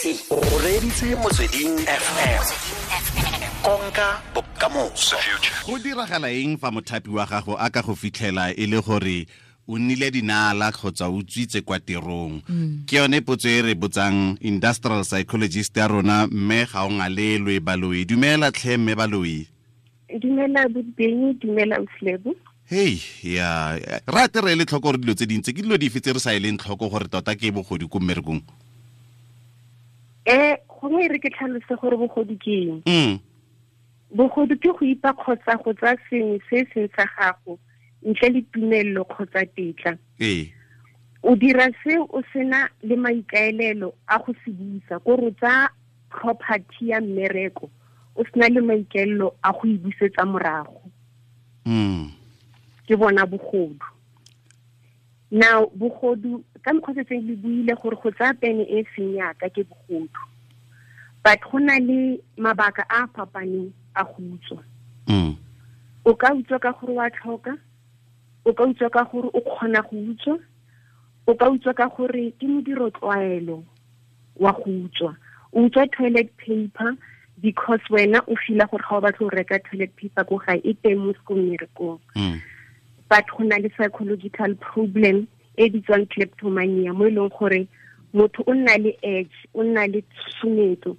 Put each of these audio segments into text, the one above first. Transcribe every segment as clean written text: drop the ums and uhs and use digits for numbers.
O reditse Motsweding FM, konka bokamoso. Go diragala eng fa mothapi wa gago a ka go fitlhela e le gore o nnile dinala kgotsa o utswitse kwa tirong? Ke yone potso e re botsang industrial psychologist ya rona, mme ga o ngalelwe Baloi. Dumela tlhe, mme Baloi. Dumela Bobeng, dumela Uslebo. Hei ya rate re le tlhoko gore dilo tse dintsi ke dilo dife tse re sa eleng tlhoko gore tota ke bogodu ko mmerekong? Gongwe re ke tlhalose gore bogodu ke eng. Bogodu ke go ipa kgotsa go tsaya sengwe se seng sa gago ntle le tumello kgotsa tetla. O dira se o sena le maikaelelo a go se busa, ko re tsa property ya mmereko o sena le maikaelelo a go e busetsa morago. Ke bona bogodu. Now bogodu ka mokgwa se seng le buile gore go tsaya pene e seng yaka ke bogodu, but go na le mabaka a fapaneng a go utswa. O ka utswa ka gore wa tlhoka, o ka utswa ka gore o kgona go utswa, o ka utswa ka gore ke modiro tlwaelo wa go utswa. O utswa toilet paper because wena o feel gore ga o batle go reka toilet paper ko gae, e teng mo mmerekong. But go na le psychological problem e bitswang kleptomania, mo e leng gore motho o nna le edge, o nna le tshusumetso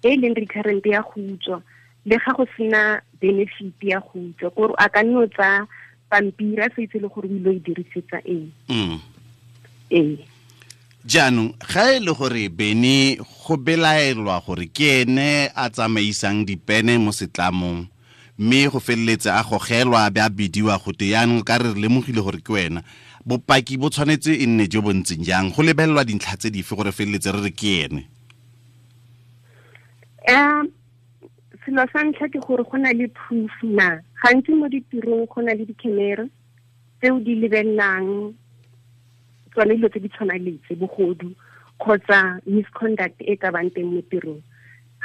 e leng recurrent ya go utswa, le ga go sena benefit ya go utswa, kore a ka nno tsa pampiri a sa itse le gore o ile go e dirisetsa eng. Jaanong ga e le gore Bene go belaelwa gore ke ene a tsamaisang dipene mo setlamong, mme go feleletse a gogelwa a be a bidiwa gote yaanong ka re lemogile gore ke wena, bopaki bo tshwanetse e nne jo bo ntseng jang? Go lebelelwa dintlha tse dife gore feleletse re re ke ene? Selo sa ntlha ke gore go na le proof na. Gantsi mo ditirong go na le di-camera tseo di lebelelang tsone dilo tse di tshwanang le tse, bogodu kgotsa misconduct e ka bang teng mo tirong.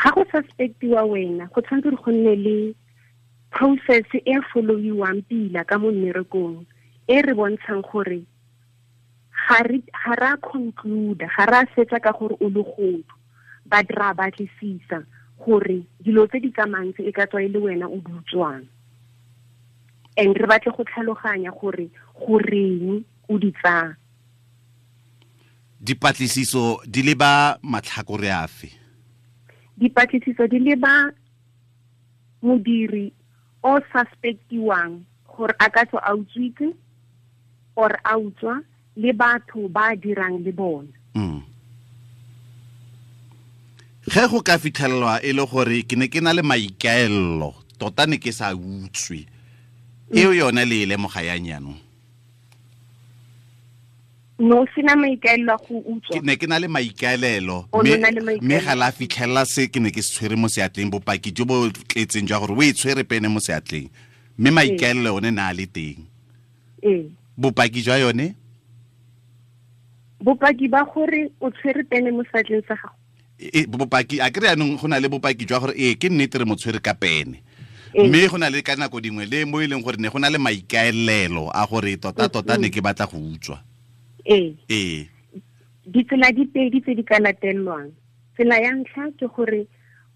Ga go suspectiwa wena, go tshwanetse gore go nne le process e followiwang pila ka mo mmerekong, e re bontshang gore ga ra conclude, ga ra fetsa ka gore o legodu, but ra batlisisa gore dilo tse di tsamayang tse e ka tswa e le wena o di utswang, and re batle go tlhaloganya gore goreng o di tsaya. Dipatlisiso di leba matlhakore afe? Dipatlisiso di leba modiri o suspectiwang gore a ka tswa a utswitse or a utswa, le batho ba dirang le bona. Ge go ka fitlhelelwa e le gore ke ne ke na le maikaelelo, tota ne ke sa utswe, eo yone le e lemoga yang jaanong? No, sena maikaelelo a go utswa. Ke ne ke na le maikaelelo, O ne o na le maikaelelo. mme ga la fitlhelela se ke ne ke se tshwere mo seatleng, bopaki jo bo tletseng jwa gore o e tshwere pene mo seatleng, mme maikaelelo one na a le teng. Bopaki jwa yone? Bopaki ba gore o tshwere pene mo seatleng sa gago. Bopaki, a kry jaanong go na le bopaki jwa gore ke nnete re mo tshwere ka pene. Mme go na le ka nako dingwe le mo e leng gore ne go na le maikaelelo a gore tota tota ne ke batla go utswa. Ditsela di pedi tse di ka latelwang. Tsela ya ntlha ke gore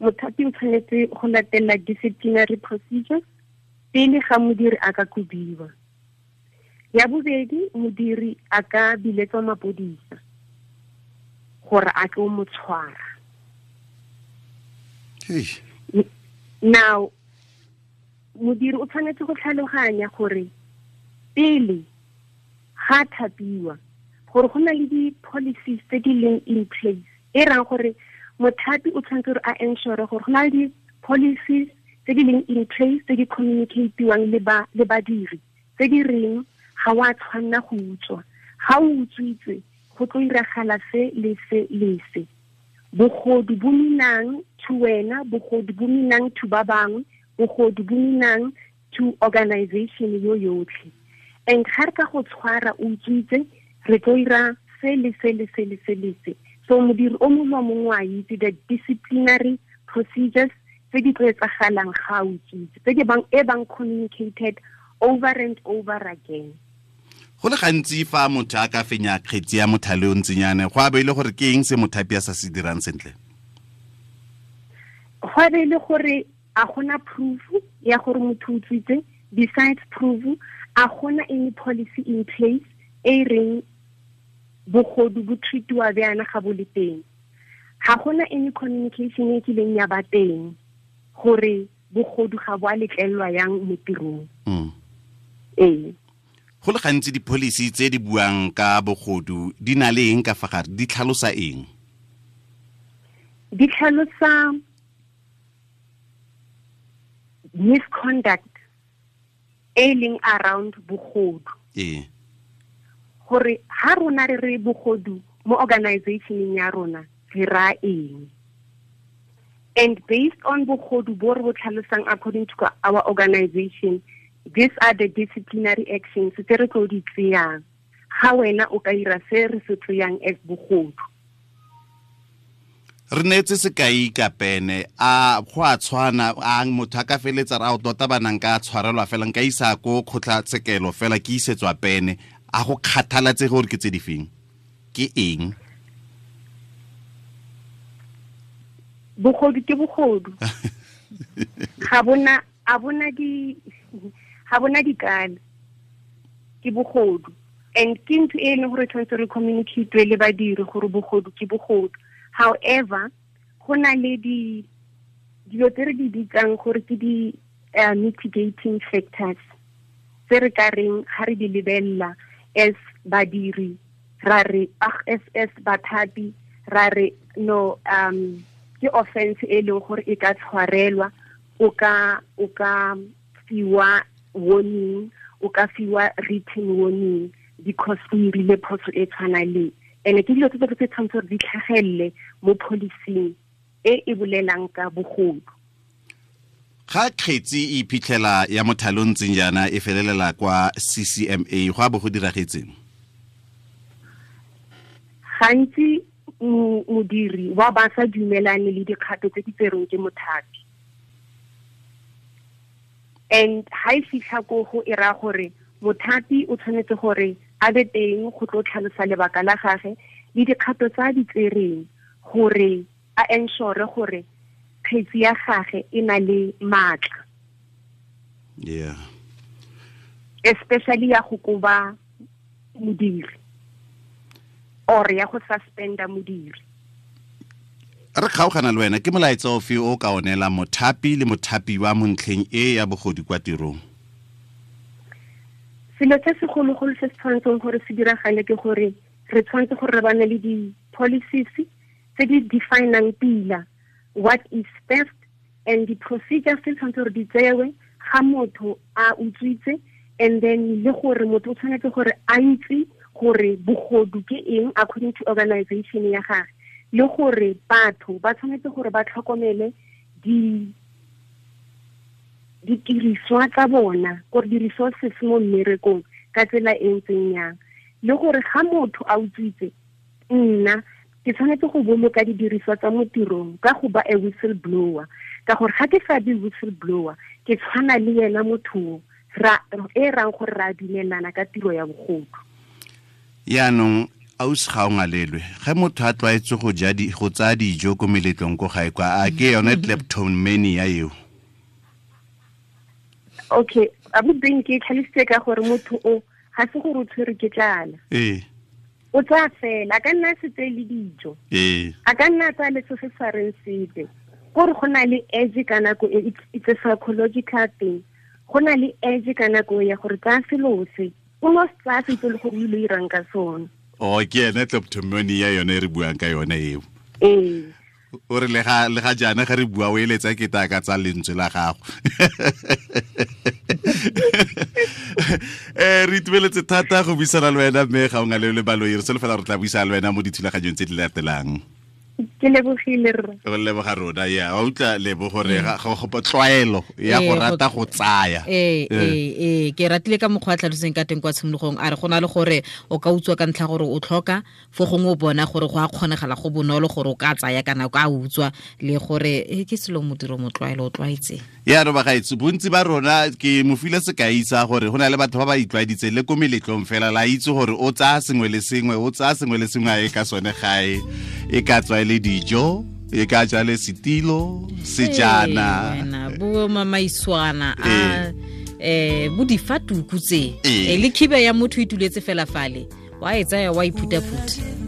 mothapi o tshwanetse go latela disciplinary procedures pele ga modiri a ka kobiwa. Ya bobedi, modiri a ka biletswa mapodisa gore a tlo mo tshwara. Now, modiri o tshwanetse go tlhaloganya gore pele ga thapiwa, gore go na le di-policies tse di leng in place, e rang gore mothapi o tshwanetse gore a ensure gore go na le di-policies tse di leng in place tse di communicatiwang le badiri, tse di reng ga wa tshwanna go utswa. Ga o utswitse, go tlo iragala se le se le se. Bogodu bo minang to wena, bogodu bo minang to ba bangwe, bogodu bo minang to organization yo yotlhe. And ga re ka go tshwara o utswitse, re tlo ira se le se le se le se le se. So modiri o mongwe le mongwe wa itse the disciplinary procedures tse di tlo etsagalang ga o utswitse, tse di bang, e bang communicated over and over again. Go le gantsi fa motho a ka fenya kgetsi ya mothale o ntsinyane, go a be ile gore ke eng se mothapi a sa se dirang sentle? Go a be ile gore a gona proof ya gore motho o utswitse. Besides proof, a gona any policy in place e reng bogodu bo treatiwa bjana ga bo le teng. Ga gona any communication e kileng ya ba teng gore bogodu ga bo a letlelelwa yang mo tirong. Ee. Go le gantsi di-policy tse di buang ka bogodu di na le eng ka fa gare, di tlhalosa eng? Di tlhalosa misconduct e leng around bogodu. Gore ha rona re re bogodu mo organizationeng ya rona re ra eng? And based on bogodu bo re bo tlhalosang according to our organization, these are the disciplinary actions tse re tlo di tseyang ga wena o ka ira se re se tseyang as bogodu. Re neetse sekai ka pene, a go a tshwana, a motho a ka feletsa ra o tota banang ka tshwarelwa fela, nka isa ko kgotlatshekelo fela ke isetswa pene, a go kgathalatse gore ke tse di feng? Ke eng? Bogodu ke bogodu. Ga bona, a bona di, ga bona dikala, ke bogodu. And ke ntho e leng gore tshwanetse re communicate le badiri gore bogodu ke bogodu. However, go na le dilo tse re di bitsang gore ke di mitigating factors tse re ka reng ga re di lebelela as badiri, ra re, as bathapi, ra re no, ke offense e leng gore e ka tshwarelwa, o ka fiwa warning, o ka fiwa written warning because o irile phoso e tshwana le. And ke dilo tse tse tshwanetse gore di tlhagelele mo policing e e bolelang ka bogodu. Ga kgetsi e iphitlhela ya mothale o ntseng jaana e felelela kwa CCMA, go a bo go diragetseng? Gantsi modiri wa ba sa dumelane le dikgato tse di tserweng ke mothapi. And ha e fitlha ko go e raya gore mothapi o tshwanetse gore a be teng go tlo tlhalosa lebaka la gagwe le dikgato tsa di tsereng gore a ensure gore kgetsi ya gagwe e na le maatla. Especially ya go koba modiri or ya go suspenda modiri. Re kgaogana le wena, ke molaetsa ofe o ka onela mothapi le mothapiwa mo ntlheng e ya bogodu kwa tirong? Selo se segologolo se se tshwanetseng gore se diragale ke gore re tshwanetse gore re bane le di-policies tse di definang pila what is theft and the procedures tse tshwanetse gore di tsewe ga motho a utswitse, and then le gore motho o tshwanetse gore a itse gore bogodu ke eng according to organization ya gagwe, le gore batho ba tshwanetse gore ba tlhokomele ditiriswa tsa bona, gore di-resources mo mmerekong ka tsela e ntseng yang, le gore ga motho a utswitse, nna ke tshwanetse go boloka didiriswa tsa mo tirong ka go ba a whistleblower, ka gore ga ke sa be whistleblower ke tshwana le yena motho e rang gore ra dumelana ka tiro ya bogodu. Yaanong ausi ga o ngalelwe, ge motho a tlwaetse go ja go tsaya dijo ko meletlong ko gae kwa, a ke yone kleptomania eo? Okay, abuti ke tlhalositse ka gore motho o ga se gore o tshwerwe ke tlala. O tsaya fela, a ka nna a se tseye le dijo. A ka nna a tsaya le se se sa reng sepe. Kore go na le edge ka nako e, it's a psychological thing. Go na le edge ka nako ya gore tsaya selo se, o no se tsaya se itse le gore o ile o irang ka sone. Oh, ke ene kleptomania yone e re buang ka yone eo. O re le ga jaana ga re bua o eletsa ke ta ka tsa lentswe la gago. Re itumeletse thata go buisana le wena, mme ga o ngale le baloi, re solofela re tla buisana le wena mo dithulaganyong tse di latelang. Ke lebogile rra. Go leboga rona ya wa utlwa lebo gore ga go tlwaelo ya go rata go tsaya. Ke ratile ka mokgwa a tlhaloseng ka teng kwa tshimologong, a re go na le gore o ka utswa ka ntlha gore o tlhoka, fo gongwe o bona gore go a kgonegala go bonolo gore o ka tsaya kana o ka utswa, le gore ke selo modiro motlwaelo o tlwaetse. Ya re bagaetso, bontsi ba rona ke mo file sekai sa gore go na le batho ba ba itlwaeditseng le ko meletlong fela, la itse gore o tsaya sengwe le sengwe, o tsaya sengwe le sengwe a e ka sone gae, e ka tswa e le dijo, e ka tswa le setilo, sejana, bo mamaiswana a bo difatuku tse, le khiba ya motho e tuletse fela fale, wa e tsaya wa iphutaphuta.